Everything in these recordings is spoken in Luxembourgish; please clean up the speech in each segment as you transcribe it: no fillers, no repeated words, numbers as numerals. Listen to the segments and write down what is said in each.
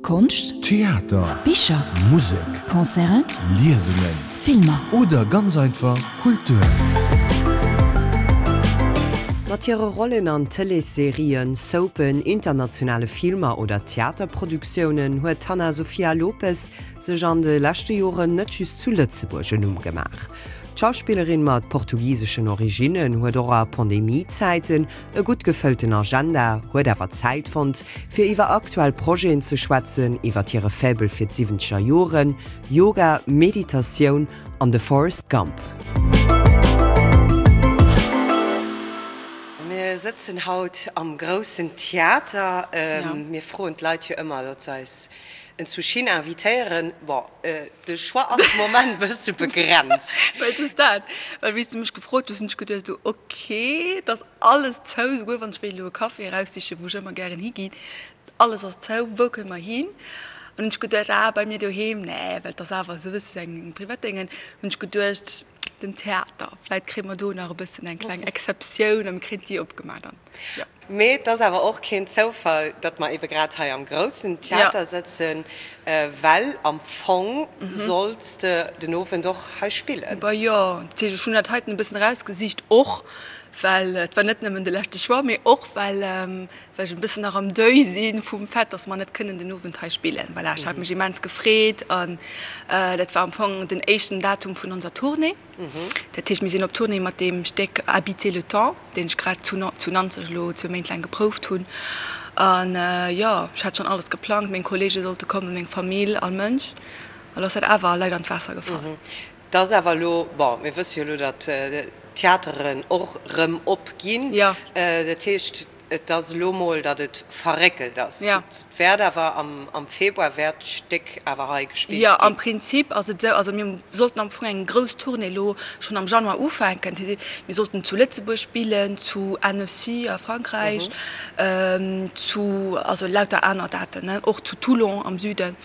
Konscht, Theater, Bicher, Musek, Concerten, Liesungen, Filmer. Oder ganz einfach Kultur. Mat hire Rollen an Tëleesserien, Soapen, internationale Filmer oder Theaterproduktiounen huet d'Hannah Sofia Lopes sech an de leschte Joren net just zu Lëtzebuerg en Numm gemaach. D'Schauspillerin mat portugiseschen Originnen huet och a Pandemie-Zäiten E gutt gefëllten Agenda, huet awer Zäit fonnt, fir iwwer aktuell Projeten ze schwätzen, iwwer hire Faible fir d'siwwenzeger Joren, Yoga, Meditatioun an de Forrest Gump. Mir sëtzen haut am Groussen Theater. Mir froen d'Leit jo ëmmer, datt se eis enzwousch hin invitéieren. Bon, de Choix ass de Moment e bësse begrenzt. Well et ass dat, well wéi s de mech gefrot hues, hunn ech geduecht esou, ok, et ass alles zou, souguer wann ech wéilt elo e Café eraussichen, wou ech ëmmer gären higinn, alles ass zou, wou kënne mer hin? An hunn ech geduecht, ah, bei mir doheem, nee, well et ass awer esou e bësse eng privat Déngen, hunn ech geduecht, den Theater, vläit kréie mer do nach e bëssen eng kleng Exceptioun a mir kréien d'Dier opgemaach dann, jo. Mee et ass awer och keen Zoufall, datt mer ebe grad hei am Groussen Theater sëtzen, well am Fong solls de den Owend och hei spillen. Bah jo, dat heescht, ech hunn dat heiten e bëssen erausgesicht, och well et war net nëmmen de leschte Choix, mee och well ech e bëssen nach am Deuil si vum Fait, datt mer net kënnen den Owend hei spillen. Voilà, ech hat mech immens gefreet an dat war am Fong den éischten Datum vun onser Tournée. Dat heescht, mir sinn op Tournée mat deem Stéck Habiter le temps, deen ech grad zu zu Nanzeg elo zwou Méint laang geprouft hunn. An jo, ech hat schonn alles geplangt, meng Kolleege sollte kommen, meng Famill, all Mënsch. An elo ass dat awer leider an d'Waasser gefall. Et ass awer elo, bon, mir wësse jo elo, datt d'Theateren och erëm op ginn. Dat heescht, Et ass elo mol, datt et verréckelt ass. Et wäert awer am Februar wäert d'Stéck awer hei gespillt ginn. Jo, am Prinzip ass et esou, also mir sollten am Fong eng grouss Tournée elo schonn am Januar ufänken. Mir sollten zu Lëtzebuerg spillen, zu Annecy a Frankräich, zu, also lauter aner Daten, ne, och zu Toulon am Süden.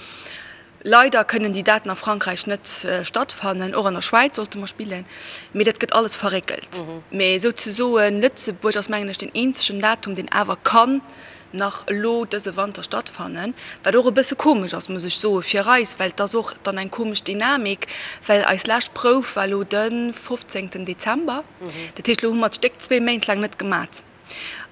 Leider kënnen déi Daten a Frankräich net stattfannen, och an der Schwäiz sollte mer spillen, mee dat gëtt alles verréckelt. Mee souzesoen Lëtzebuerg ass mengen ech deen eenzegen Datum, deen awer kann nach elo dëse Wanter stattfannen, wat och e bësse komesch ass, muss ech soen, fir eis, well et ass och dann eng komesch Dynamik, well eis lescht Prouf war elo de 15 Dezember, dat heescht elo hu mer d'Stéck zwee Méint laang net gemat.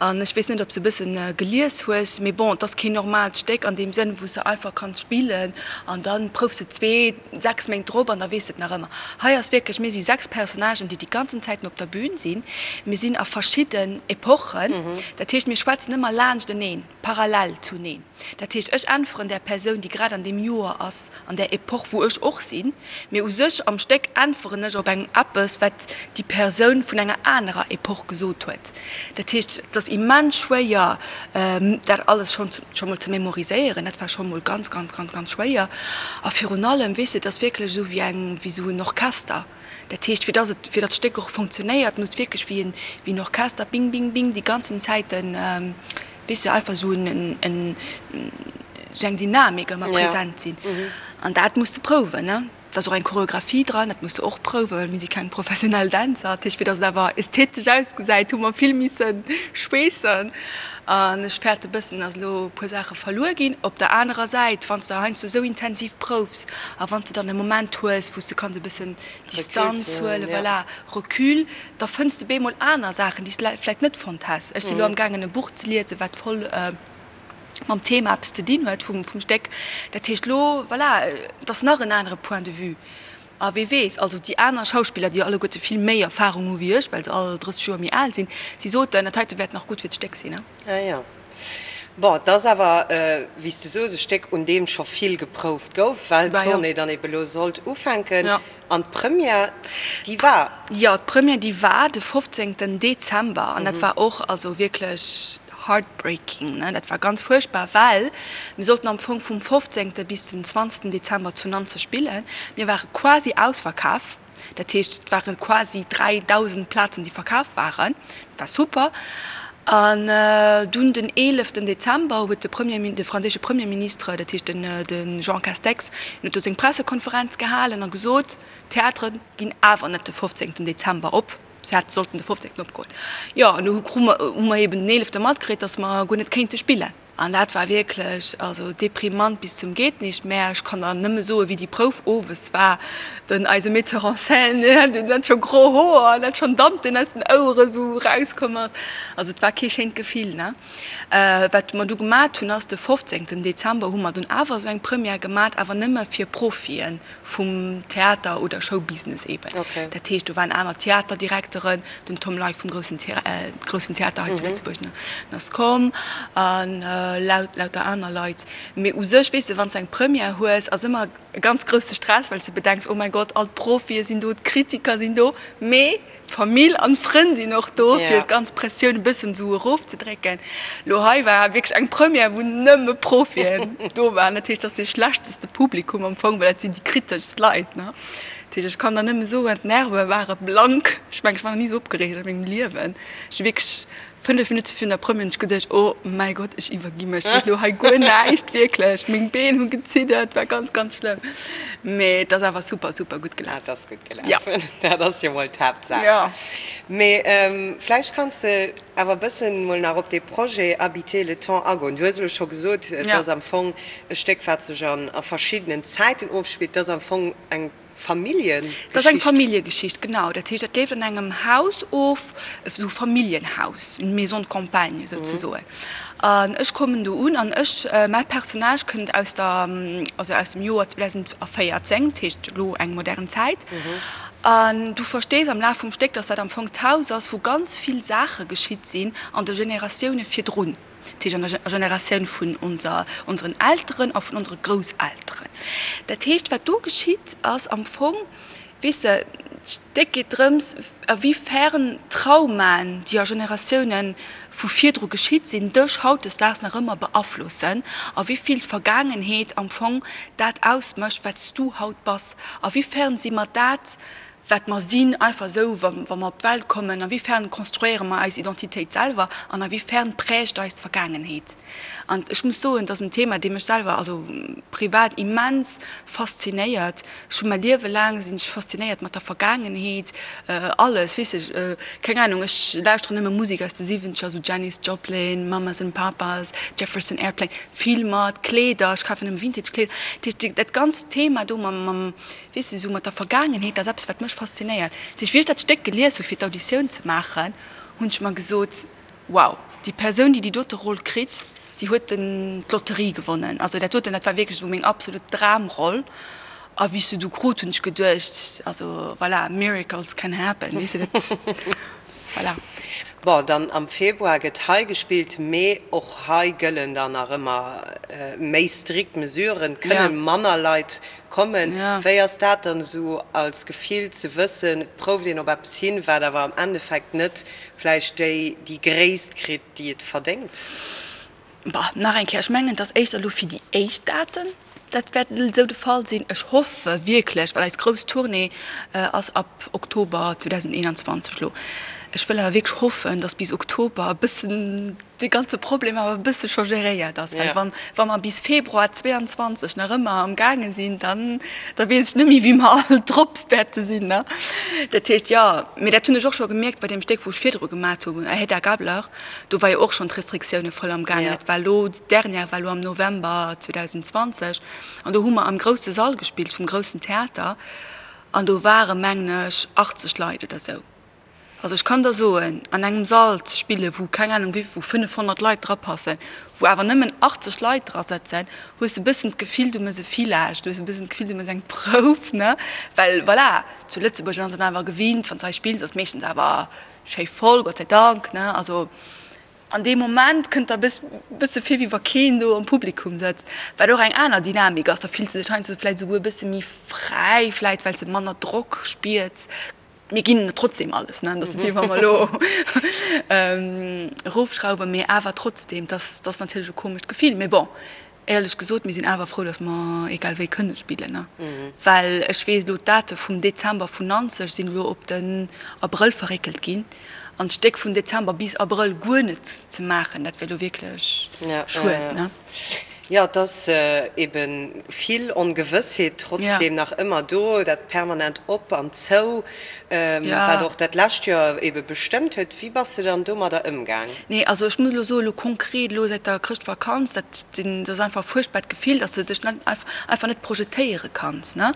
An ech weess net, ob s de e bëssen gelies hues, mee bon, et ass keen normaalt Stéck an deem Sënn, wou s de einfach kanns spillen an da proufs de zwee, sechs Méint drop an da weess de et nach ëmmer. Hei ass wierklech, mir si sechs Personnagen, déi déi ganzen Zäiten op der Bühn sinn. Mir sinn a verschidden Epochen, dat heescht, mir schwätzen ëmmer laanschteneen, parallel zuneen. Dat heescht, ech äntweren där Persoun, déi grad an deem Joer ass, an där Epoch, wou ech och sinn, mee u sech am Stéck äntweren ech op eng eppes, wat déi Persoun vun enger anerer Epoch gesot huet. Dat heescht, et ass immens schwéier, dat alles schonn scho mol ze memoriséieren. Dat war scho mol ganz, ganz, ganz, ganz schwéier. A virun allem, weess de, et ass wierklech esou wéi eng, wéi esou en Orchester. Dat heescht, fir dass et, fir datt d'Stéck och funktionéiert, muss wierklech wéi en, wéi en Orchester, bing, bing, bing, déi ganzen Zäiten, weess de, einfach esou en, en, esou eng Dynamik ëmmer present sinn. An dat muss de prouwen, ne? Et ass och eng Choreographie dran, dat muss de och prouwen, well mir si keng professionell Dänzer. Dat heescht, fir dass et awer ästhetesch ausgesäit, hu mer vill misse schweessen. An ech fäerte bëssen, dass elo e puer Saache verluer ginn. Op der anerer Säit, wann s de heiansdo esou intensiv proufs a wann s de dann e Moment hues, wou s de kanns e bëssen Distanz huelen, voilà, Recul, da fënns de bemol aner Saachen, déi s de vläicht net fonnt häss. Ech si lo amgaangen e Buch ze liesen, wat voll mam Thema eppes ze dinn huet vum Stéck. Dat heescht elo, voilà, et ass nach en anere Point de vue. A wee weess, also déi aner Schauspiller, déi alleguerte vill méi Erfahrung hu wéi ech, well se all 30 Joer méi al sinn, si soten, dat heite wäert nach gutt fir d'Stéck sinn. Ah jo. Bon, et ass awer, wéi s de soos, e Stéck, un deem scho vill geprouft gouf, well d'Tournée dann ebe lo sollt ufänken. An d'Première, déi war? Jo, d'Première, déi war de 15 Dezember an dat war och also wierklech heartbreaking, ne. Dat war ganz fuerchtbar, well mir sollten am Fong vum 15. Bis den 20. Dezember zu Nanzeg spillen. Mir ware quasi ausverkaf, dat heescht et ware quasi 3.000 Plazen, déi verkaf waren. Dat war super. An dunn den 11. Dezember huet de Premier, de franséische Premierministre, dat heescht den de Jean Castex, hien huet do seng Pressekonferenz gehalen a gesot, d'Theatere ginn awer net de 15. Dezember op. Se hätte sollten de 15. Opgoen. Jo, an du hu mer, hu mer eben den 11. Matkritt, datt mer guer net kéinte spillen. An dat war wierklech also deprimant bis zum geet nicht mehr. Ech kann der nëmme soen, wéi déi Prouf owes war. Den eise Metteur en scène, deen hat scho gro Hoer an hat schonn Damp, deen aus den Ouere sou erauskomm ass. Also et war kee schéint Gefill, ne. Wat mer du gemat hunn, ass de 15 Dezember hu mer dunn awer esou eng Première gemat, awer nëmme fir Profien vum Theater oder Showbusiness eben. Dat heescht, do waren aner Theaterdirekteren, den Tom Leick vum groussen groussen Theater hei zu Lëtzebuerg, den ass komm, an lauter aner Leit. Mee u sech, weess de, wann s de eng Première hues, ass ëmmer e ganz grousse Stress, well s de bedenks, oh mäi Gott, all d'Profie sinn do, d'Kritiker sinn do, mee D'Famill an d'Frënn sinn och do, fir d'ganz Pressioun e bëssen esou erofzedrécken. Lo hei war wierklech eng Première, wou nëmme Profien do waren. Dat heescht, dat ass dee schlechteste Publikum am Fong, well dat sinn déi kriteschst Leit, ne. Dat heescht, ech kann der nëmme soen, d'Nerve ware blank. Ech mengen, ech war nach ni esou opgereegt a mengem Liewen. Ech hu wierklech 5 Minutte virun der Première hunn ech geduecht, oh mäi Gott, ech iwwergi mech, et geet elo hei guer näischt, wierklech. Meng Been hu geziddert, war ganz, ganz schlëmm. Mee et ass awer super, super gutt gelaf. Et ass gutt gelaf, dat ass jo mol d'Haaptsaach. Jo. Mee vläicht kanns de awer e bëssen mol nach op dee Projet Habiter le temps agoen. Du hues elo scho gesot, et ass am Fong e Stéck, wat sech a verschiddenen Zäiten ofspillt. Et ass am Fong eng Familljegeschicht? Dat ass eng Familljegeschicht, genau. Dat heescht, dat leeft an engem Haus of, esou Familljenhaus, une maison de campagne souzesoen. An ech kommen do un an ech, mäi Personnage kënnt aus der, also aus dem Joer 2014, dat heescht elo eng modern Zäit. An du verstees am Laf vum Stéck, dass dat am Fong d'Haus ass, wou ganz vill Saache geschitt sinn an de Generatioune virdrun. Dat heescht an der Generatioun vun onser, onseren Elteren a vun onsere Grousselteren. Dat heescht, wat do geschitt, ass am Fong, weess de, d'Stéck geet drëms, a wéi fern Traumaen, déi a Generatioune vu virdru geschitt sinn, dech hautdesdaags nach ëmmer beaflossen, a wéi vill d'Vergaangenheet am Fong dat ausmécht, wat s du haut bass, a wéi fern si mer dat, wat mer sinn, einfach esou, wa mer op d'Welt kommen, a wéi fern konstruéiere mer eis Identitéit selwer an a wéi fern prägt eis d'Vergaangenheet. An ech muss soen, et ass en Thema, dee mech selwer, also privat immens faszinéiert. Ech hu mäi Liewe laang sinn ech faszinéiert mat der Vergaangenheet, alles, weess ech, keng Ahnung, ech lauschteren nëmme Musek aus de Siwwenzeger, esou Janis Joplin, Mamas and Papas, Jefferson Airplane, Filmer, d'Kleeder, ech kafen nëmme Vintage-Kleeder. Dat heescht, dat ganzt Thema do mam, mam Weess de, sou mat der Vergaangenheet, dat ass eppes, wat mech faszinéiert. Dat heescht, wéi ech dat Stéck gelies hu fir d'Auditioun ze maachen, hunn ech mer gesot, Wow, déi Persoun, déi déi dote Roll kritt, déi huet den d'Lotterie gewonnen. Also dat doten, dat war wierklech esou meng absolut Dramroll. A wéi ech se du krut, hunn ech geduecht, also voilà, miracles can happen, weess de, dat, voilà. Bon, dann am Februar gëtt hei gespillt, mee och hei gëllen dann nach ëmmer méi strikt Mesuren, et kënne manner Leit kommen. Wéi ass dat dann esou als Gefill ze wëssen, et prouft een op eppes hin, wat awer am Endeffekt net vläicht déi déi Gréisst kritt, déi et verdéngt? Bah, nach eng Kéier, ech mengen, et ass éischter elo fir déi éischt Daten, dat wäert esou de Fall sinn. Ech hoffe wierklech, well eis grouss Tournée ass ab Oktober 2021 elo. Ech wëll awer wierklech hoffen, datt bis Oktober e bëssen dee ganze Problem awer e bësse scho geréiert ass, well wann, wa mer bis Februar 22 nach ëmmer am gaange sinn, dann, da weess ech net méi, wéi mer all drop wäerte sinn, ne. Dat heescht, jo, mee dat hunn ech och scho gemierkt bei deem Stéck, wou ech virdru gemat hu, Hedda Gabler, do war jo och schonn d'Restriktioune voll am gaangen. Dat war elo, d'Dernière war elo am November 2020 an do hu mer am grousse Sall gespillt vum groussen Theater an do ware mengen ech 80 Leit oder esou. Also ech kann der soen, an engem Sall ze spillen, wou keng Ahnung wéi, wou 500 Leit drapassen, wou awer nëmmen 80 Leit dra sëtzen, hues de e bëssen d'Gefill, du mëss e Village, du hues e bëssen d'Gefill, du mëss eng Prouf, ne? Well voilà, zu Lëtzebuerg ass een awer gewinnt, wann s de hei spills, ass meeschtens awer schéi voll, Gott sei Dank, ne? Also an deem Moment kënnt der e bësse vir, wéi wa keen do am Publikum sëtzt, wat och eng aner Dynamik ass. Da fills de dech heiansdo vläicht esouguer e bësse méi fräi, vläicht well s de manner Drock spiers. Mir ginn trotzdem alles, ne? Dat ass net wéi wa mer elo erofschrauwen, mee awer trotzdem, dat ass natierlech e komescht Gefill. Mee bon, éierlech gesot, mir sinn awer frou, datt mer egal wéi kënne spillen, ne? Well ech weess elo, d'Date vum Dezember vun Nanzeg sinn elo op den Abrëll verréckelt ginn. An d'Stéck vun Dezember bis Abrëll guer net ze maachen, dat wär elo wierklech schued, ne? Jo, et ass ebe vill Ongewëssheet trotzdeem nach ëmmer do, dat permanent op an zou, wat och dat lescht Joer ebe bestëmmt huet. Wéi bass de dann domadder ëmgaang? Nee, also ech muss elo soen, elo konkret elo säit der Chrëschtvakanz, dat ass einfach e fuerchtbart Gefill, dass de dech net einfach net projetéiere kanns, ne?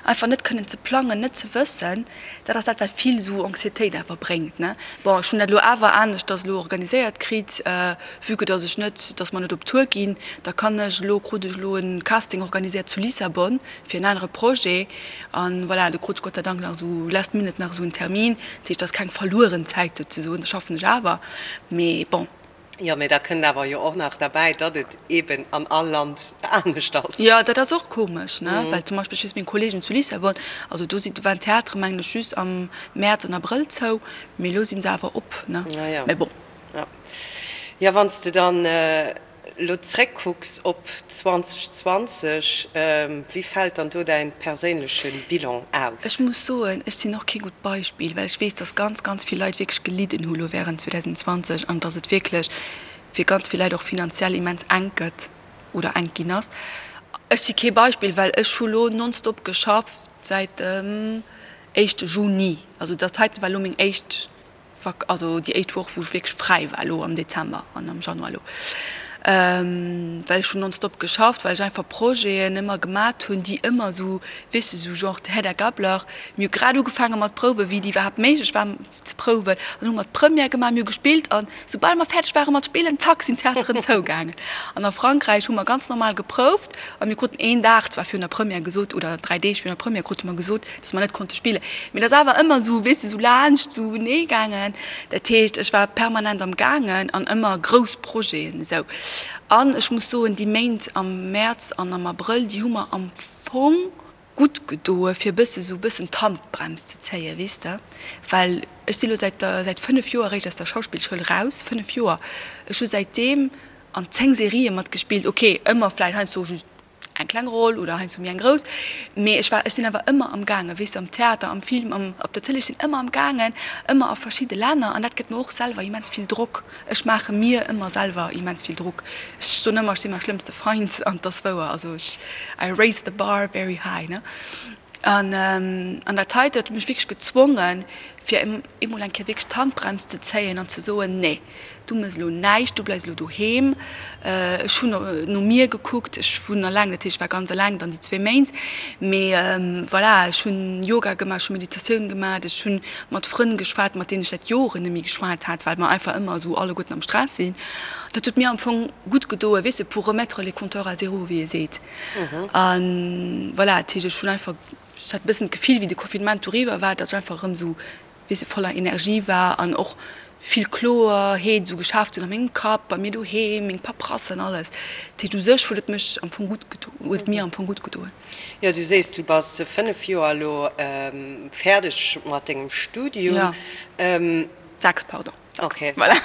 Einfach net kënnen ze plangen, net ze wëssen, dat ass dat wat vill esou Anxiétéit awer bréngt, ne? Bon, ech hunn dat elo awer aneschters elo organiséiert kritt, vue que dass ech net, dass mer net op Tour ginn, da kann ech elo, krut ech elo en Casting organiséiert zu Lissabon fir en anere Projet an voilà, do krut ech Gott sei Dank nach esou last minute nach esou en Termin, dat heescht, dat ass keng verlueren Zäit souzesoen, da schaffen ech awer, mee bon. Jo, mee da kënnt awer jo och nach derbäi, datt et eeben an all Land anescht ass. Jo, dat ass och komesch, ne, well zum Beispill, ech weess, meng Kollegen zu Lissabon, also do si, do waren d'Theatere mengen ech just am Mäerz an Abrëll zou, mee elo si se awer op, ne, mee bon. Jo, jo, wann s de dann elo zréckkucks op 2020, wéi fält dann do däin perséinleche Bilan aus? Ech muss soen, ech sinn och kee gutt Beispill, well ech weess, dass ganz, ganz vill Leit wierklech gelidden hu lo während 2020 an dass et wierklech fir ganz vill Leit och finanziell immens enk gëtt oder enk ginn ass. Ech si kee Beispill, well ech hu lo nonstop geschafft säit dem éischte Juni. Also dat heite war lo meng éischt Vak also déi éischt Woch wou ech wierklech fräi war elo am Dezember an am Januar elo, well ech hunn nonstop geschafft, well ech einfach Projeten ëmmer gemat hunn, déi ëmmer esou, weess de, esou genre Hedda Gabler, mir hu grad ugefaange mat prouwen, wéi et iwwerhaapt méiglech war ze prouwen, an hu mer d'Première gemaach, mir hu gespillt an soubal mer fäerdeg ware mat spillen, zack sinn d'Theateren zougaangen. An a Frankräich hu mer ganz normal geprouft a mir kruten een Dag zwar virun der Première gesot oder 3 Deeg virun der Première krute mer gesot, dass mer net konnte spillen. Mee dat ass awer ëmmer esou, weess de, esou laanscht esou nee gaangen. Dat heescht, ech war permanent am gaangen an ëmmer grouss Projeten esou. An ech muss soen, déi Méint am Mäerz an am Abrëll, déi hu mer am Fong gutt gedoe fir e bësse esou e bëssen d'Handbrems ze zéien, weess de. Well ech si lo säit der, säit 5 Joer eréischt aus der Schauspillschoul raus, 5 Joer. Ech hu säitdeem an 10 Serië matgespillt, ok, ëmmer vläicht heiansdo just eng kleng Roll oder heiansdo méi eng grouss, mee ech war, ech sinn awer ëmmer am gaangen, weess de, am Theater, am Film, am, op der Tëlee, ech sinn ëmmer am gaangen, ëmmer a verschidde Länner an dat gëtt mer och selwer immens vill Drock. Ech maache mir ëmmer selwer immens vill Drock. Ech soen ëmmer, ech si mäi schlëmmste Feind an 't ass wouer, also ech, I raise the bar very high, ne. An, an dat hei, dat huet mech wierklech gezwongen, fir emol eng Kéier wierklech d'Handbrems ze zéien an ze soen, nee, du méchs elo näischt, du bleifs elo doheem. Ech hunn no mir gekuckt, ech wunnen eleng, dat heescht, ech war ganz eleng dann déi zwee Méint. Mee voilà, ech hunn Yoga gemaach, ech hu Meditatioun gemaach, ech hu mat Frënn geschwat, mat deenen ech säit Joren net méi geschwat hat, well mer einfach ëmmer esou alleguerten am Stress sinn. Dat huet mir am Fong gutt gedoen, weess de, pour remettre les compteurs à zéro, wéi ee seet. A voilà, dat heescht, ech hunn einfach, ech hat e bëssen d'Gefill, wéi de Confinement doriwwer war, datt ech einfach erëm esou, weess de, voller Energie war an och vill Kloerheet esou geschaaft hunn a mengem Kapp, bei mir doheem, meng Paperassen, alles. Dat heescht, u sech huet et mech am Fong gutt gedo, huet et mir am Fong gutt gedoen. Jo, du sees, du bass 5 Joer elo fäerdeg mat dengem Studium. Jo, 6, pardon. Ok. Voilà.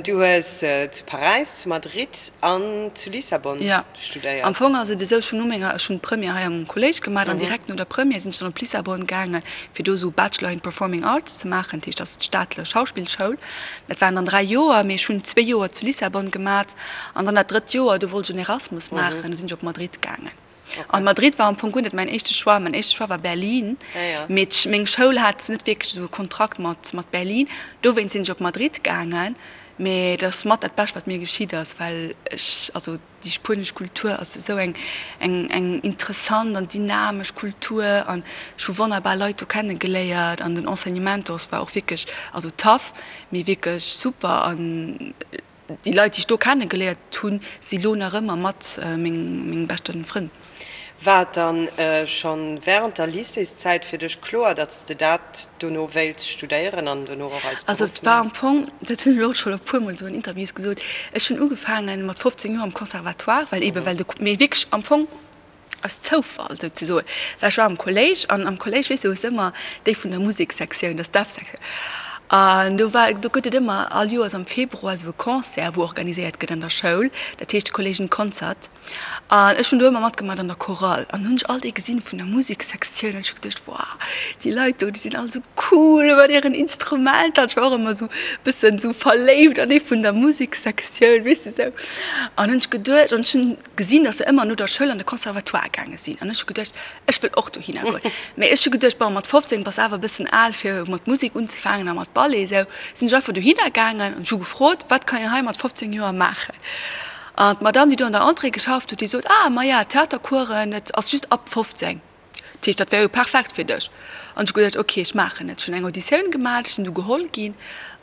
Du hues zu Paräis, zu Madrid an zu Lissabon studéiert. Am Fong ass et esou, ech hunn no menger, ech hunn d'Première hei am Kolléisch gemaach an direkt no der Première sinn ech dann op Lissabon gaange fir do esou Bachelor in Performing Arts ze maachen, dat heescht dat ass d'staatlech Schauspillschoul. Dat waren dann 3 Joer, mee ech hunn zwee Joer zu Lissabon gemat an dann dat drëtt Joer, do wollt ech en Erasmus maachen, do sinn ech op Madrid gaangen. An Madrid war am Fong guer net mäin éischte Choix. Mäin éischte Choix war Berlin. Mee meng Schoul hat net wierklech esou e Kontrakt mat mat Berlin. Dowéinst sinn ech op Madrid gaangen. Mee dat ass mat dat Bescht, wat mir geschitt ass, well ech, also déi spuenesch Kultur ass esou eng eng eng interessant an dynamesch Kultur an ech hu wonnerbar Leit do kennegeléiert an den Enseignement do ass war och wierklech, also tough, mee wierklech super an Déi Leit, déi ech do kennegeléiert hunn, si lo nach ëmmer mat meng beschte Frënn. War et dann schonn wärend der Lycéeszäit fir dech kloer, datt s de dat dono wéilts studéieren an dono och als Beruff Also et war am Fong, dat hunn ech och schonn e puermol esou an Interviews gesot, ech hunn ugefaange mat 15 Joer am Conservatoire, well eebe well de, mee wierklech am Fong aus Zoufall souzesoen, well ech war am Kolléisch an am Kolléisch, weess de, hues de ëmmer déi vun der Musekssektioun, dat ass d'F-Sektioun. An do war, do gëtt et ëmmer all Joers am Februar esou e Concert, wou organiséiert gëtt an der Schoul, dat heescht Kolleegen Concert. An ech hunn do ëmmer matgemaach an der Chorale. An hunn ech all déi gesinn vun der Musekssektioun an ech hu geduecht, Wow, déi Leit do, déi sinn all esou cool mat hiren Instrumenter. An ech war och ëmmer esou e bëssen esou verléift an ee vun der Musekssektioun, weess de sou. An hunn ech geduecht, an ech hunn gesinn, dass se ëmmer no der Schoul an de Conservatoire gaange sinn. An ech hu geduecht, Ech wëll och dohinner goen. Mee ech hu geduecht, bon, mat 15 bass awer e bëssen al fir mat Musek unzefaangen a mat Ballet esou. Sinn ech einfach dohinner gaangen an ech hu gefrot, wat kann een hei mat 15 Joer maachen? An d'Madame, déi do an der Entrée geschafft huet, déi sot, ah, maja, Theatercoursen, et ass just ab 15. Dat heescht, dat wär jo perfekt fir dech. An ech hu geduecht, ok, ech maachen et. Ech hunn eng Auditioun gemaach, ech sinn du geholl ginn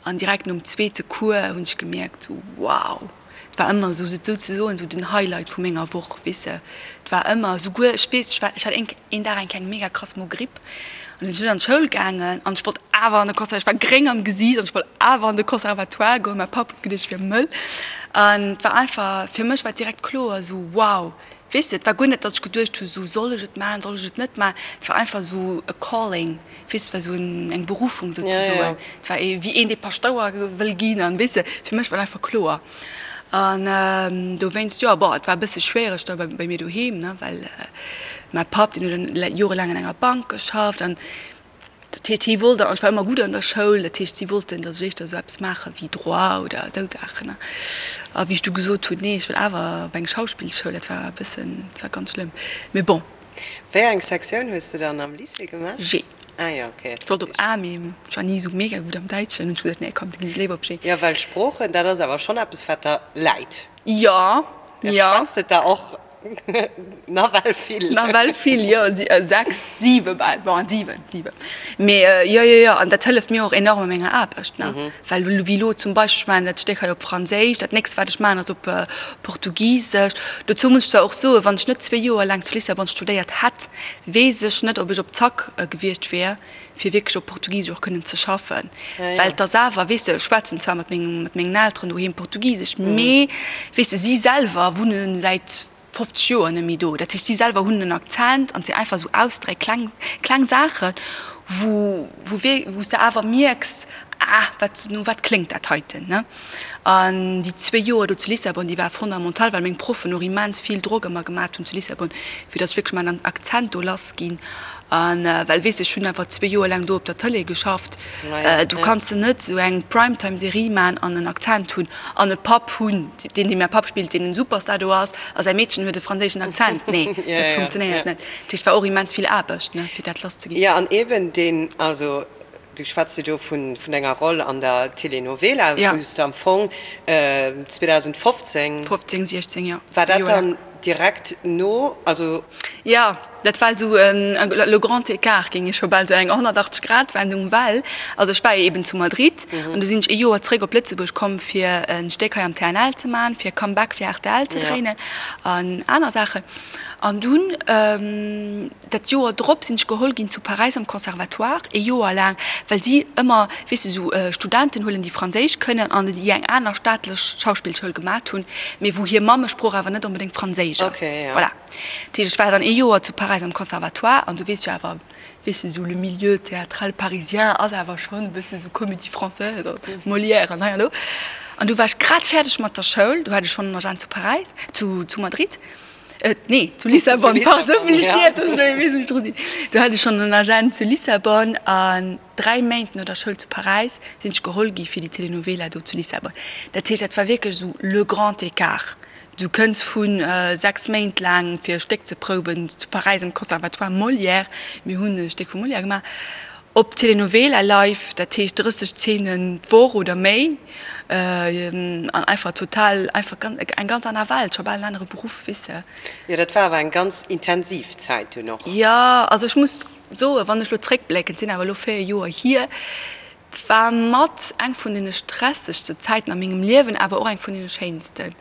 an direkt nom zweete Cours hunn ech gemierkt, sou, wow! Et war ëmmer esou, souzesoen esou den Highlight vu menger Woch, weess de. Et war ëmmer, souguer, ech weess, ech war, ech hat een, een Dag eng kleng mega krass Mogripp an sinn ech net an d'Schoul gaangen an ech wollt awer an de Conser, ech war gréng am Gesiicht an ech wollt awer an de Conservatoire goen. Mäi Papp huet geduecht, ech wier mëll an et war einfach, fir mech war et direkt kloer esou, wow, weess de. Et war guer net, datt ech geduecht hu sou, soll ech et maachen, soll ech et net maachen. Et war einfach esou e Calling. Weess, et war esou eng Berufung souzesoen. Et war ee wéi een, dee Paschtouer wëll ginn an, weess de, fir mech war et einfach kloer. An dowéinst, jo, bon, et war e bësse schwiereg da bei mir doheem, ne, well mäi Papp, deen huet dann jorelaang an enger Bank geschafft an dat heescht, hie wollt, an ech war ëmmer gutt an der Schoul, dat heescht, si wollten, datt ech éischter esou eppes maache wéi Droit oder esou Saachen, ne. A wéi ech du gesot hunn, nee, ech wëll awer op eng Schauspillschoul, dat war e bëssen, dat war ganz schlëmm, mee bon. Wéi eng Sektioun hues de dann am Lycée gemaach? G. Ah jo, ok. Ech wollt op A, mee ech war ni esou mega gutt am Däitschen. Hunn ech gesot, nee komm, da ginn ech léiwer op G. Jo, well Sproochen, dat ass awer schonn eppes, wat der läit. Jo, jo. Schwätzt et der och nawell vill. Nawell vill, jo, 6, 7 bal, bon, 7, 7. Mee jo, jo, jo, an dat hëlleft mir och enorm a menger Aarbecht, ne. Well wéi elo zum Beispill, ech maachen dat Stéck hei op Franséisch, dat nächst wat ech maachen ass op Portugisesch. Dozou muss ech zwar och soen, wann ech net zwee Joer laang zu Lissabon studéiert hätt, weess ech net, ob ech op Zack gewiescht wär, fir wierklech op Portugisesch och kënnen ze schaffen. Well et ass awer, weess de, ech schwätzen zwar mat mengen Elteren doheem Portugisesch, mee weess de, si selwer wunne säit 50 Joer net méi do. Dat heescht, si selwer hunn en Akzent an et sinn einfach esou Ausdréck, kleng, kleng Saachen, wou, wou wierk, wou s de awer mierks, ah, wat, no wat kléngt dat heiten, ne? An déi zwee Joer do zu Lissabon, déi war fondamental, well meng Proffen och immens vill Drock ëmmer gemat hunn zu Lissabon, fir datt ech wierklech mäin Akzent do lass ginn. An well, weess de, ech hunn awer zwee Joer laang do op der Tëlee geschafft, do kanns de net esou eng Primetime-Serie man an en Akzent hunn an e Papp hunn, deen, dee mäi Papp spillt, deen en Superstar do ass, a säi Meedchen huet e franséischen Akzent. Nee, dat funktionéiert net. Dat heescht, et war och immens vill Aarbecht, ne, fir dat lasszeginn. Jo, an eeben deen, also du schwätz jo do vun denger Roll an der Telenovela, wou s de am Fong 2015. 15, 16, jo. War dat dann direkt no, also. Jo, dat war esou le grand écart, géing ech scho bal soen, eng 180 Grad Wendung, well, also ech war jo eben zu Madrid an du sinn ech ee Joer zréck op Lëtzebuerg komm fir e Stéck hei am TNL ze man, fir Comeback fir rtl ze dréinen an aner Saachen. An dunn dat Joer drop sinn ech geholl ginn zu Paräis am Conservatoire, ee Joer laang, well si ëmmer, weess de, esou Studenten huelen, déi Franséisch kënnen an déi eng aner staatlech Schauspillschoul gemat hunn, mee wou hir Mammesprooch awer net onbedéngt Franséisch ass. Voilà. Dat heescht, ech war dann ee Joer zu Paräis am Conservatoire an du weess jo awer, weess de, esou le milieu théâtral parisien ass awer schonn e bësse sou Comédie française, Molière an hei an do. An du war ech grad fäerdeg mat der Schoul, du hat ech schonn en Agent zu Paräis, zu Madrid. Nee, zu Lissabon, pardon, wéi ech dir, dass ech elo weess, wou ech dru sinn. Do hat ech schonn en Agent zu Lissabon an dräi Méint no der Schoul zu Paräis sinn ech geholl gi fir déi Telenovela do zu Lissabon. Dat heescht, dat war wierklech esou le grand écart. Du kënns vu 6 Méint laang fir e Stéck ze prouwen zu Paräis am Conservatoire Molière, mir hunn e Stéck vum Molière gemaach, op Telenovela live, dat heescht 30 Zeenen d'Woch oder méi an einfach total, einfach eng ganz aner Welt, scho bal en anere Beruff, weess de. Jo, dat war awer eng ganz intensiv Zäit dunn och. Jo, also ech muss soen, wann ech elo zréckblécken, et sinn awer elo 4 Joer hier, et war mat eng vun deene stressegste Zäiten a mengem Liewen, awer och eng vun deene schéinsten.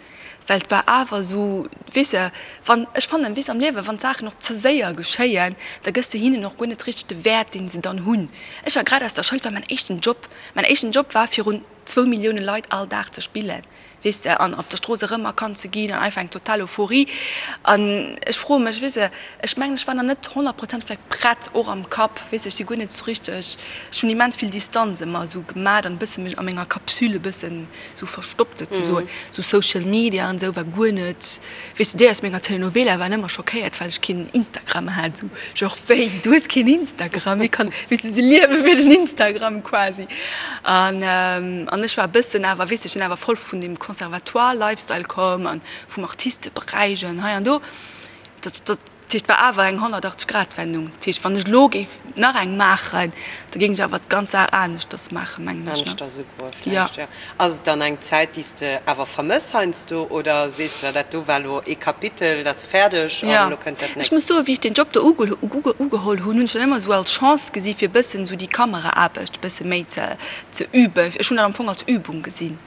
Well et war awer esou, weess de, wann, ech fannen, weess am Liewen, wann d'Saachen och ze séier geschéien, da gëss de hinnen och guer net richteg de Wäert, deen se dann hunn. Ech war grad aus der Schoul, et war mäin éischten Job. Mäin éischten Job war, virun zwou Millioune Leit all Dag ze spillen. Weess de, an op der Strooss erëmerkannt ze ginn an einfach eng total Euphorie. An ech froe mech, weess de, ech mengen, ech war nach net 100% vläicht prett, och am Kapp, weess de, ech si guer net esou richteg, ech hunn immens vill Distanz ëmmer esou gemat an e bësse mech a menger Capsule e bëssen esou verstoppt souzesoen. Esou Social Media an esou war guer net. Weess de, déi aus menger Telenovela waren ëmmer schockéiert, well ech keen Instagram hat. Esou, genre, wéi, du hues keen Instagram? Wéi kann, weess de, se liewe fir den Instagram quasi. An, an ech war e bëssen awer, weess de, ech sinn awer voll vun deem Conservatoire-Lifestyle komm an vum Artisteberäich an hei an do. Dat, dat. Dat heescht, et war awer eng 180 Grad Wendung. Dat heescht, wann ech elo géif nach eng maachen, da géing ech awer d'ganz Saach aneschters maachen, mengen ech. Aneschters ugoe vläicht, jo. Ass et dann eng Zäit, déi s de awer vermëss heiansdo oder sees de, dat do war elo ee Kapitel, dat ass fäerdeg an elo kënnt dat nächst? Ech muss soen, wéi ech deen Job do ugeholl hunn, hunn ech dat ëmmer esou als Chance gesi fir e bëssen esou déi Kameraaarbecht e bësse méi ze üben. Ech hunn dat am Fong als Übung gesinn.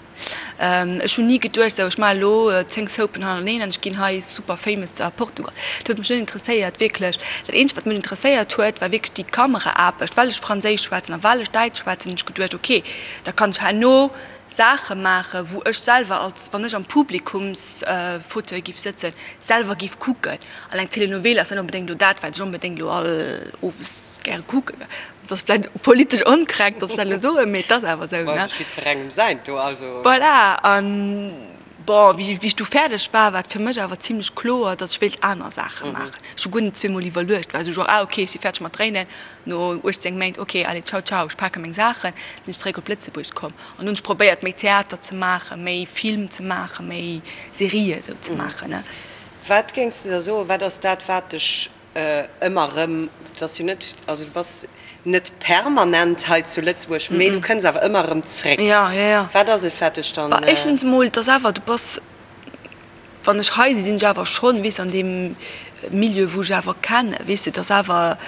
Ech hunn ni geduecht, sou ech maache elo 10 Soapen hannerteneen an ech ginn hei super famous a Portugal. Dat huet mech net interesséiert, wierklech. Dat eenzegt wat mech interesséiert huet, war wierklech déi Kameraaarbecht. Well ech Franséisch schwätzen a well ech Däitsch schwätzen, hunn ech geduecht, ok, da kann ech herno Saache maachen, wou ech selwer als, wann ech am Publikumsfauteuil giff sëtzen, selwer giff kucken. An eng Telenovela ass net onbedéngt elo dat, wat ech onbedéngt elo all owes gäre kucken. Dat ass vläicht politesch onkorrekt, datt ech dat elo soen, mee et ass awer esou, ne? Jiddwerengem säint do, also. Voilà, an bon, wéi ech du fäerdeg war, war et fir mech awer zimlech kloer, datt ech wéilt aner Saache maachen. Ech hu guer net zweemol iwwerluecht, war esou genre, ah ok, ech si fäerdeg mat dréinen, no 18 Méint, ok, allez, ciao, ciao, ech pake meng Saachen, sinn ech zeréck op Lëtzebuerg komm an hunn ech probéiert, méi Theater ze maachen, méi Film ze maachen, méi Serië esou ze maachen, ne? Wat géings de da soen, wat ass dat, wat dech Ëmmer erëm, et ass jo net, also du bass net permanent hei zu Lëtzebuerg, mee du kënns awer ëmmer erëm zréck. Jo, jo, jo. Wat ass et, wat dech dann. Bah, éischtens emol, et ass awer, du bass, wann ech hei sinn, sinn ech awer schonn, weess, an deem Milieu, wou ech awer kennen, weess de, et ass awer,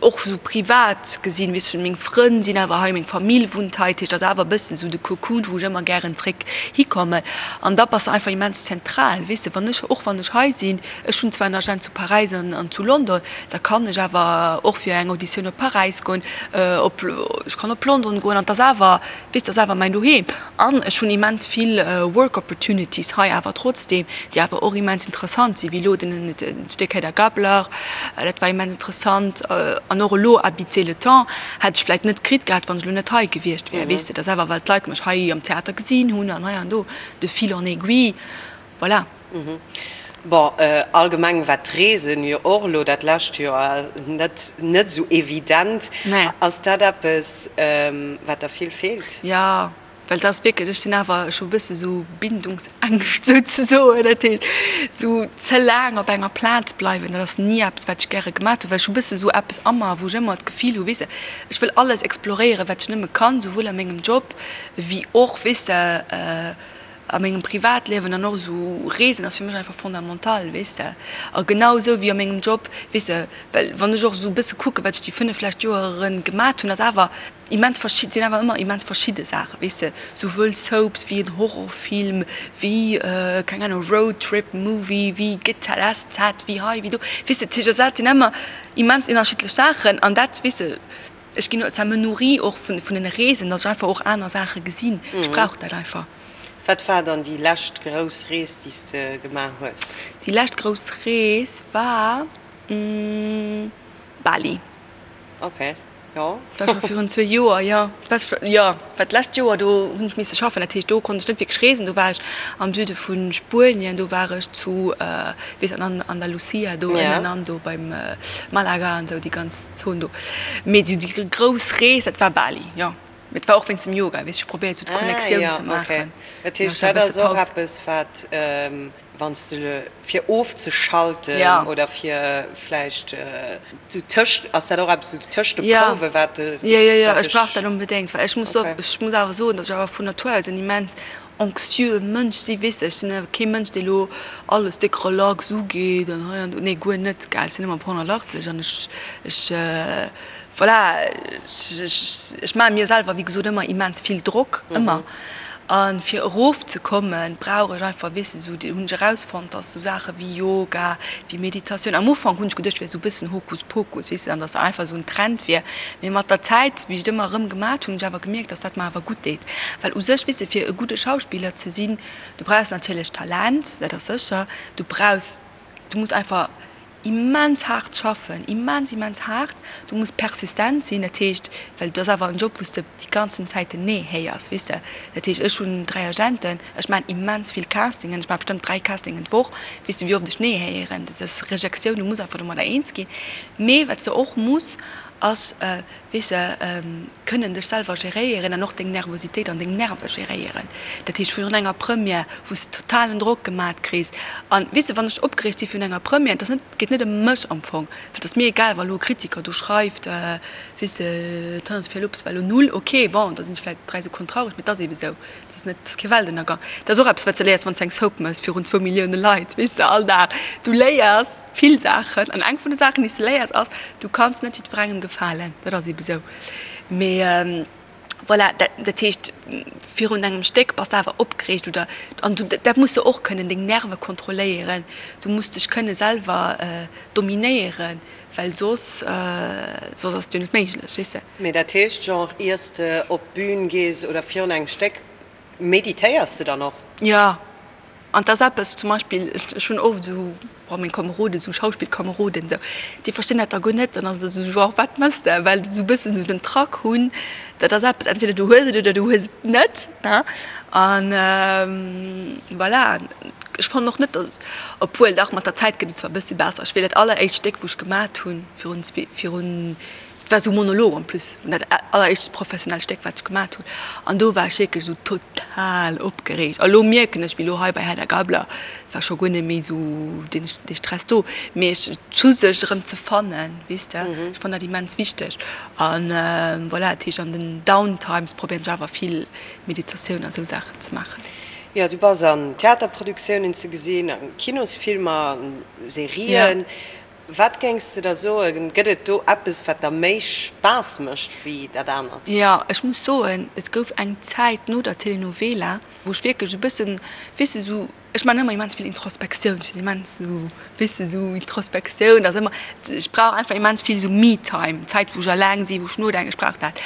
Och sou privat gesinn, weess ech, meng Frënn sinn awer hei, meng Famill wunnt hei, dat heescht, ass awer e bëssen sou de Cocoon, wou ech ëmmer gären zréck hikommen. An da bass de einfach immens zentral, weess de, wann ech, och wann ech hei sinn, ech hunn zwar en Agent zu Paräis an an zu London, da kann ech awer och fir eng Auditioun op Paräis goen, op, ech kann op London goen an 't ass awer, weess de, ass awer mäin Doheem. An ech hunn immens vill Work Opportunities hei awer trotzdeem, déi awer och immens interessant sinn, wéi elo den Stéck Hedda Gabler, dat war immens interessant. An och elo Habiter le temps hätt ech vläicht net kritt gehat, wann ech elo net hei gewiescht wär, weess de. Dat ass awer, well d'Leit mech hei am Theater gesinn hunn an hei an do, de fil en aiguille, voilà. Bon, allgemeng war d'Reesen jo och elo dat lescht Joer net net esou evident. Ass dat eppes, wat der vill feelt? Jo, well dat ass wierklech, ech sinn awer, ech hu e bësse sou Bindungsängscht souzesoen. Dat heescht, sou ze laang op enger Plaz bleiwen, dat ass ni eppes, wat ech gäre gemaat hunn, well ech hu bësse sou eppes a mer, wou ech ëmmer d'Gefill hu, weess de, ech wëll alles exploréieren, wat ech nëmme kann, souwuel a mengem Job wéi och, weess de, A mengem Privatliewen an och esou Reesen ass fir mech einfach fondamental, weess de. A genau esou wéi a mengem Job, weess de, well wann ech och esou e bësse kucke wat ech déi 5 lescht Joeren gemat hunn, ass awer immens verschid, sinn awer ëmmer immens verschidde Saachen, weess de, souwuel Soaps wéi en Horrorfilm, wéi, keng Ahnung, Roadtrip Movie, wéi GZSZ, wéi hei, wéi do, weess de. Dat sinn ëmmer immens ënnerschiddlech Saachen an dat, weess de, Ech ginn, ça me nourrit och vun den Reesen, datt ech einfach och aner Saache gesinn. Ech brauch dat einfach. Wat war dann déi lescht grouss Rees, déi s de gemaach hues? Déi lescht grouss Rees war Bali. Ok, jo. Dat war scho virun zwee Joer, jo. Jo, well d'lescht Joer, do hunn ech misse schaffen, dat heescht, do konnt ech net wierklech reesen. Do war ech am Süde vu Spuenien, do war ech zu, weess an Andalusia do ënnen an do beim Malaga an esou déi ganz Zon do. Mee esou déi grouss Rees, dat war Bali, jo. Mee et war och wéinst dem Yoga, weess, ech probéiert esou d'Connectioun ze maachen. Dat heescht, dat ass och eppes, wat wann s de fir ofzeschalten oder fir vläicht tëscht, ass dat och eppes esou tëscht de Prouwe wat dech. Jo, jo, jo, ech brauch dat onbedéngt, well ech muss ech muss awer soen, datt ech awer vun Natur aus en immens anxieux Mënsch si, weess de, ech sinn awer kee Mënsch, dee lo alles déck relax ugeet an hei an do, nee guer net, gell, ech sinn ëmmer op 180 an ech, ech voilà, ech, ech maache mir selwer wéi gesot ëmmer immens vill Drock, ëmmer. A fir erof ze kommen, brauch ech einfach, weess de, esou, hunn ech erausfonnt, dass esou Saache wéi Yoga, wéi Meditatioun, am Ufank hunn ech geduecht, wär esou e bëssen Hokuspokus, weess de, an dass dat einfach esou en Trend wier. Mee mat der Zäit, wéi ech et ëmmer erëm gemat hunn, hunn ech awer gemierkt, dass dat mer awer gutt deet. Well u sech, weess de, fir e gudde Schauspiller ze sinn, du brauchs natierlech Talent, dat ass sécher, du brauchs, du muss einfach immens haart schaffen, immens immens haart, du muss persistent sinn, dat heescht, well et ass awer en Job wou s de déi ganzen Zäit den Nee héiers, weess de, dat heescht ech hunn 3 Agenten, ech maachen immens vill Castingen, ech maache bestëmmt 3 Castingen d'Woch, weess de wéi oft ech Nee héieren, dat ass Rejektioun, du muss einfach domadder eens ginn, mee wat s de och muss ass, weess de, kënnen dech selwer geréieren an och deng Nervositéit an deng Nerve geréieren. Dat heescht virun enger Première, wou s de totalen Drock gemat kriss an, weess de, wann ech opgereegt si virun enger Première, et ass net, et geet net ëm mech am Fong, well et ass mir egal, wa lo e Kritiker do schreift, weess de, d'Hanna-Sophia Lopes war lo null, ok, bon, da sinn ech vläicht 3 Sekonnen traureg, mee et ass eebe sou. Dat ass net, dat ass kee Weltënnergang. Dat ass och eppes, wat s de léiers, wann s de eng Soap méchs virun zwou Millioune Leit, weess de, all Dag. Du léiers vill Saachen an eng vun de Saachen, déi s de léiers, ass, du kanns net jiddwerengem gefalen. Dat ass eebe sou. Mee voilà, dat, dat heescht, virun engem Stéck bass de awer opgereegt oder, an du, dat muss de och kënnen, deng Nerve kontrolléieren. Du muss dech kënne selwer dominéieren. Well soss, soss ass et jo net méiglech, weess de. Mee dat heescht, genre, iers de op d'Bün gees oder virun engem Stéck, meditéiers de dann och? Jo, an 't ass eppes, zum Beispill, ech hunn oft esou, bon, meng Komeroden, esou Schauspillkomeroden esou, déi verstinn dat da guer net. Dann ass et esou genre, wat mëss de? Well se esou e bëssen esou den Trac hunn, dat ass eppes, entweder du hues et oder du hues et net, ne? An voilà. Ech fannen och net, dass, obwuel dach, mat der Zäit gëtt et zwar e bëssi besser. Ech weess, dat alleréischt Stéck, wou ech gemat hunn, virun zwee, virun, et war esou e Monolog en plus, dat alleréischt professionellt Stéck, wat ech gemat hunn, an do war ech wierklech esou total opgereegt. A lo mierken ech, wéi lo hei bei Hedda Gabler, war scho guer net méi esou deen, dee Stress do, mee ech, zu sech erëm ze fannen, weess de, ech fannen dat immens wichteg. An voilà, dat heescht, an den Downtimes probéieren ech awer vill Meditatioun a sou Saachen ze maachen. Jo, du bass an Theaterproduktiounen ze gesinn, a Kinosfilmer, an Serien. Wat géings de da soen, gëtt et do eppes, wat der méi Spaass mécht wéi dat anert? Jo, ech muss soen, et gouf eng Zäit no der Telenovela, wou ech wierklech e bëssen, weess de, sou, ech maachen ëmmer immens vill Introspektioun, ech sinn immens sou, weess de, sou Introspektioun ass ëmmer, ech brauch einfach immens vill sou Me-Time, Zäit, wou ech eleng sinn, wou ech nodenken, ech brauch dat.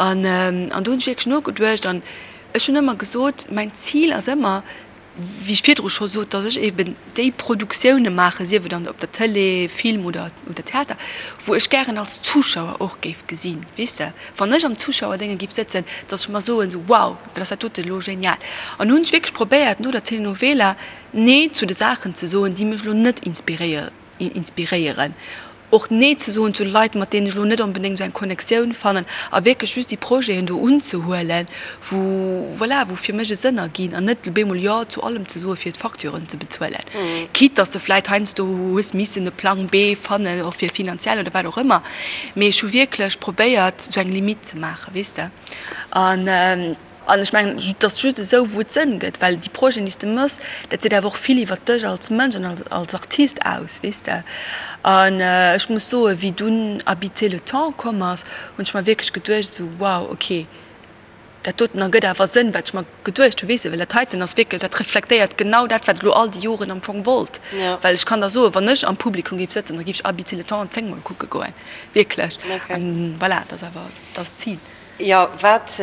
An an do hunn ech wierklech nogeduecht an Ech hunn ëmmer gesot, mäin Zil ass ëmmer, wéi ech virdru scho sot, datt ech eben déi Produktioune maachen, sief et an op der Tëlee, Film oder oder Theater, wou ech gären als Zuschauer och géif gesinn, weess de, wann ech am Zuschauerdénge géif sëtzen, datt ech mer soen, esou wow, wat ass dat dote elo genial. An hunn ech wierklech probéiert no der Telenovela Nee zu de Saachen ze soen, déi mech elo net inspiréieren. inspiréieren, och Nee ze soen zu de Leit, mat deenen ech elo net onbedéngt esou eng Connectioun fannen, a wierklech just déi Projeten do unzehuelen, wou, voilà, wou fir mech e Sënn erginn, an net op eemol Jo zu allem ze soen, fir d'Facturen ze bezuelen, quitte dass de vläit heiansdo hues missen e Plang B fannen, och fir finanziell oder wat och ëmmer. Mee ech hu wierklech probéiert, esou eng Limite ze maachen, weess de. An. An ech mengen, et ass just esou, wou et Sënn gëtt, well déi Projeten, déi s de méchs, dat seet awer och vill iwwer dech als Mënsch an als Artist aus, weess de. An ech muss soen, wéi dunn Habiter le temps komm ass, hunn ech mer wierklech geduecht esou, wow, okay, dat doten ergëtt awer Sënn, wat ech mer geduecht hunn, weess de, well dat heiten ass wierklech, dat reflektéiert genau dat, wat ech elo all déi Joren am Fong wollt. Well ech kann der soen, wann ech am Publikum géif sëtzen, da géif ech Habiter le temps zéngmol kucke goen, wierklech. An voilà, dat ass awer, dat ass d'Zil. Jo, wat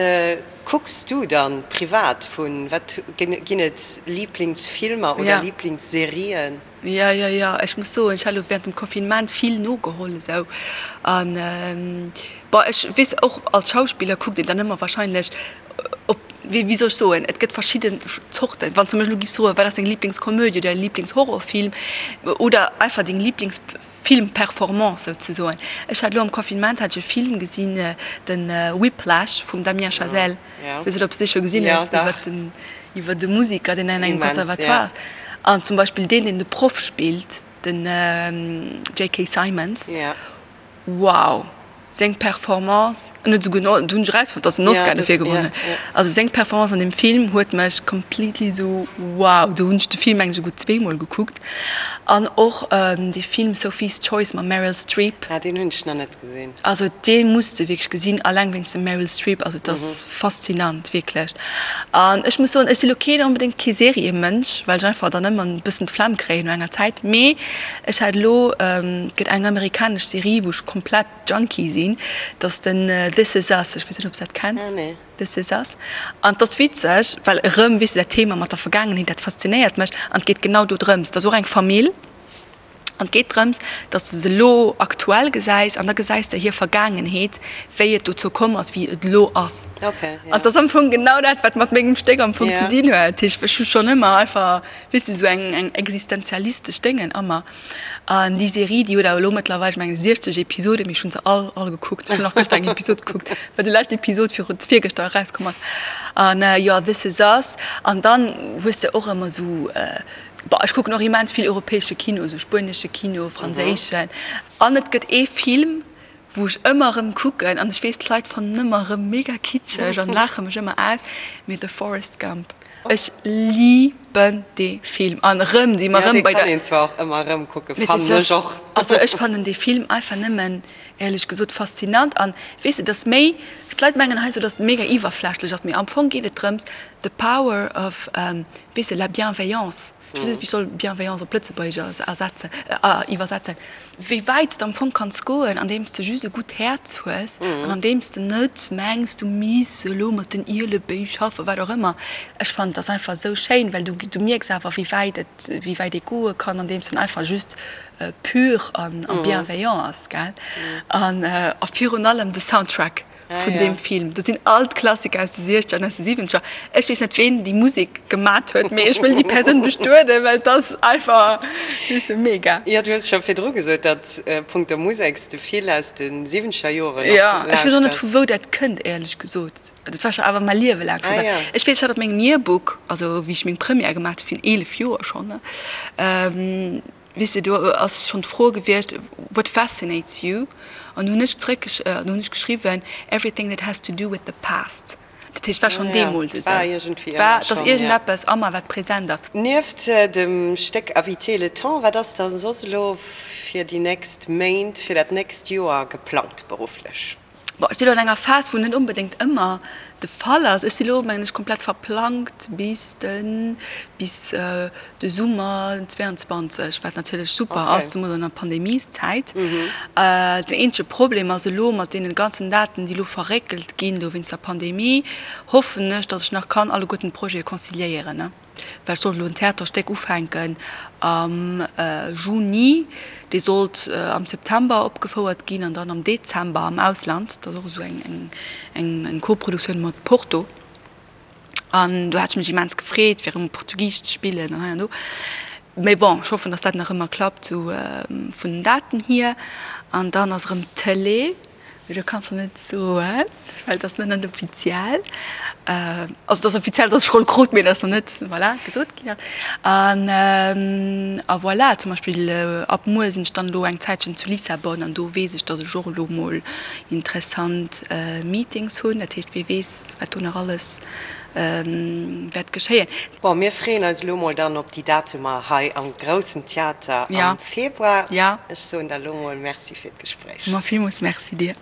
kucks du dann privat vun, wat ginn et Lieblingsfilmer oder Lieblingsserien? Jo, jo, jo, ech muss soen, ech hat elo während dem Confinement vill nogeholl esou an bon, ech weess och als Schauspiller kuckt een dann ëmmer wahrscheinlech op, wéi wéi soll ech soen, et gëtt verschidden Zorten. Wann s de mech elo giffs froen, wat ass deng Lieblingskomödie oder däi Lieblingshorrorfilm oder einfach deng Lieblings. Filmperformance souzesoen. Ech hat elo am Confinement hat ech e Film gesinn, den Whiplash vum Damien Chazelle. Ech weess net ob s de dee scho gesinn hues, iwwer den iwwer de Musiker deen an engem Conservatoire ass. An zum Beispill deen deen de Proff spillt, den JK. Simmons, wow! Seng Performance, en huet esouguer en, do hunn ech erausfonnt, dass en Oscar dofir gewonnen huet. Also seng Performance an deem Film huet mech completely esou wow, do hunn ech de Film mengen ech esouguer zweemol gekuckt. An och dee Film Sophie's Choice mam Meryl Streep. Ah, deen hunn ech nach net gesinn. Also dee muss de wierklech gesinn, alleng wéinst dem Meryl Streep, also et ass faszinant, wierklech. An ech muss soen, ech si lo keen onbedéngt kee Seriemënsch, well ech einfach dann ëmmer e bëssen d'Flemm kréien no enger Zäit, mee ech hat elo, et gëtt eng amerikanesch Serie, wou ech komplett Junkie sinn, dat ass den This Is Us, ech weess net, ob s de dat kenns, This Is Us. An et ass witzeg, well erëm, weess de, dat Thema mat der Vergaangenheet, dat faszinéiert mech an et geet genau do drëms, et ass och eng Famill an et geet drëms, datt s de se elo aktuell gesäis an da gesäis de hir Vergaangenheet, wéi et dozou komm ass, wéi et elo ass. An et ass am Fong genau dat, wat mat mengem Stéck am Fong ze dinn huet. Dat heescht, ech hu schonn ëmmer einfach, weess de, esou eng eng existenzialistesch Déngen a mer. An déi Serie, déi huet awer elo mëttlerweil, ech mengen, 60 Episoden, mee ech hunn se all, all gekuckt. Ech hunn nach gëschter eng Episod gekuckt, well déi lescht Episod viru, virgëschter erauskomm ass. An jo, This Is Us. An dann hues de och ëmmer esou, bon, ech kucken och immens vill europäesche Kino, esou spuenesche Kino, franséischen. An et gëtt ee Film, wou ech ëmmer erëm kucken, an ech weess d'Leit fannen ëmmer erëm mega kitscheg an laache mech ëmmer aus, mee The Forrest Gump. Ech liben dee Film an erëm si mer erëm bei der. Jo, dee kann een zwar och ëmmer erëm kucken, fannen ech och. Also ech fannen dee Film einfach nëmmen, éierlech gesot, faszinant an weess de, et ass méi, d'Leit mengen heiansdo, datt et mega iwwerflächlech ass, mee am Fong geet et drëms, the power of, weess de, la bienveillance. Ech weess net, wéi ech soll Bienveillance op Lëtzebuergesch ersetzen, iwwersetzen. Wéi wäit s de am Fong kanns goen, andeems de just e gutt Häerz hues an andeems de net mengs, du misst elo mat den Ielebéi schaffen, wat och ëmmer. Ech fannen, et ass einfach esou schéin, well du, du mierks awer, wéi wäit et, wéi wäit ee goe kann, andeems en einfach just pur an bienveillant ass, gell? An a virun allem de Soundtrack. vun deem Film. Do sinn all d'Klassiker aus de Siechzeger an aus de Siwwenzeger. Ech weess net, ween déi Musek gemat huet, mee ech wëll déi Persoun bestueden, well et ass einfach, weess de, mega. Jo, du hues scho virdru gesot, datt punkto Musek s de vill aus de Siwwenzeger Joren och lauschters. Jo, ech weess och net, vu wou dat kënnt, éierlech gesot. Dat war scho awer mäi Liewe laang scho esou. Ech weess, ech hat op mengem Yearbook, also wéi ech meng Première gemaat hu virun 11 Joer schonn, Weess de, do ass schonn d'Fro gewiescht, What fascinates you? An do hunn ech zréck, do hunn ech geschriwwen, Everything that has to do with the past. Dat heescht, et war schonn deemools esou. War, et ass iergendeppes ëmmer, wat present ass. Nieft dem Stéck Habiter le temps, wat ass da soss elo fir déi nächst Méint, fir dat nächst Joer geplangt berufflech? Bon, ech si lo an enger Phas, wou net onbedéngt ëmmer de Fall ass. Ech si lo, mengen ech, komplett verplangt bis de, bis de Summer 22, wat natierlech super ass, zemools an der Pandemieszäit. Den eenzege Problem ass elo mat deenen ganzen Daten, déi elo verréckelt ginn do wéinst der Pandemie, hoffen ech, datt ech nach kann alleguerten d'Projete conciliéieren. Well ech sollt elo en Theaterstéck ufänken am Juni, dee sollt am September opgefouert ginn an dann am Dezember am Ausland. Dat ass och esou eng Koproduktioun mat Porto. An do hat ech mech immens gefreet, fir erëm Portugisesch ze spillen an hei an do. Mee bon, ech hoffen, datt dat nach ëmmer klappt, esou vun den Daten hier. An dann ass erëm Tëlee. Mee do kanns de net soen, well et ass nach net offiziell. Also et ass offiziell, datt ech Roll krut, mee et ass nach net, voilà, gesot ginn. An a voilà, zum Beispill ab muer sinn ech dann elo eng Zäitchen zu Lissabon an do weess ech, datt ech och elo mol interessant Meetings hunn. Dat heescht, wie weess, wat do nach alles wäert geschéien. Bon, mir freeën eis elo mol dann op déi Datumer hei am Groussen Theater am Februar. Ech soen der elo mol Merci fir d'Gespréich. Ma villmools Merci dir.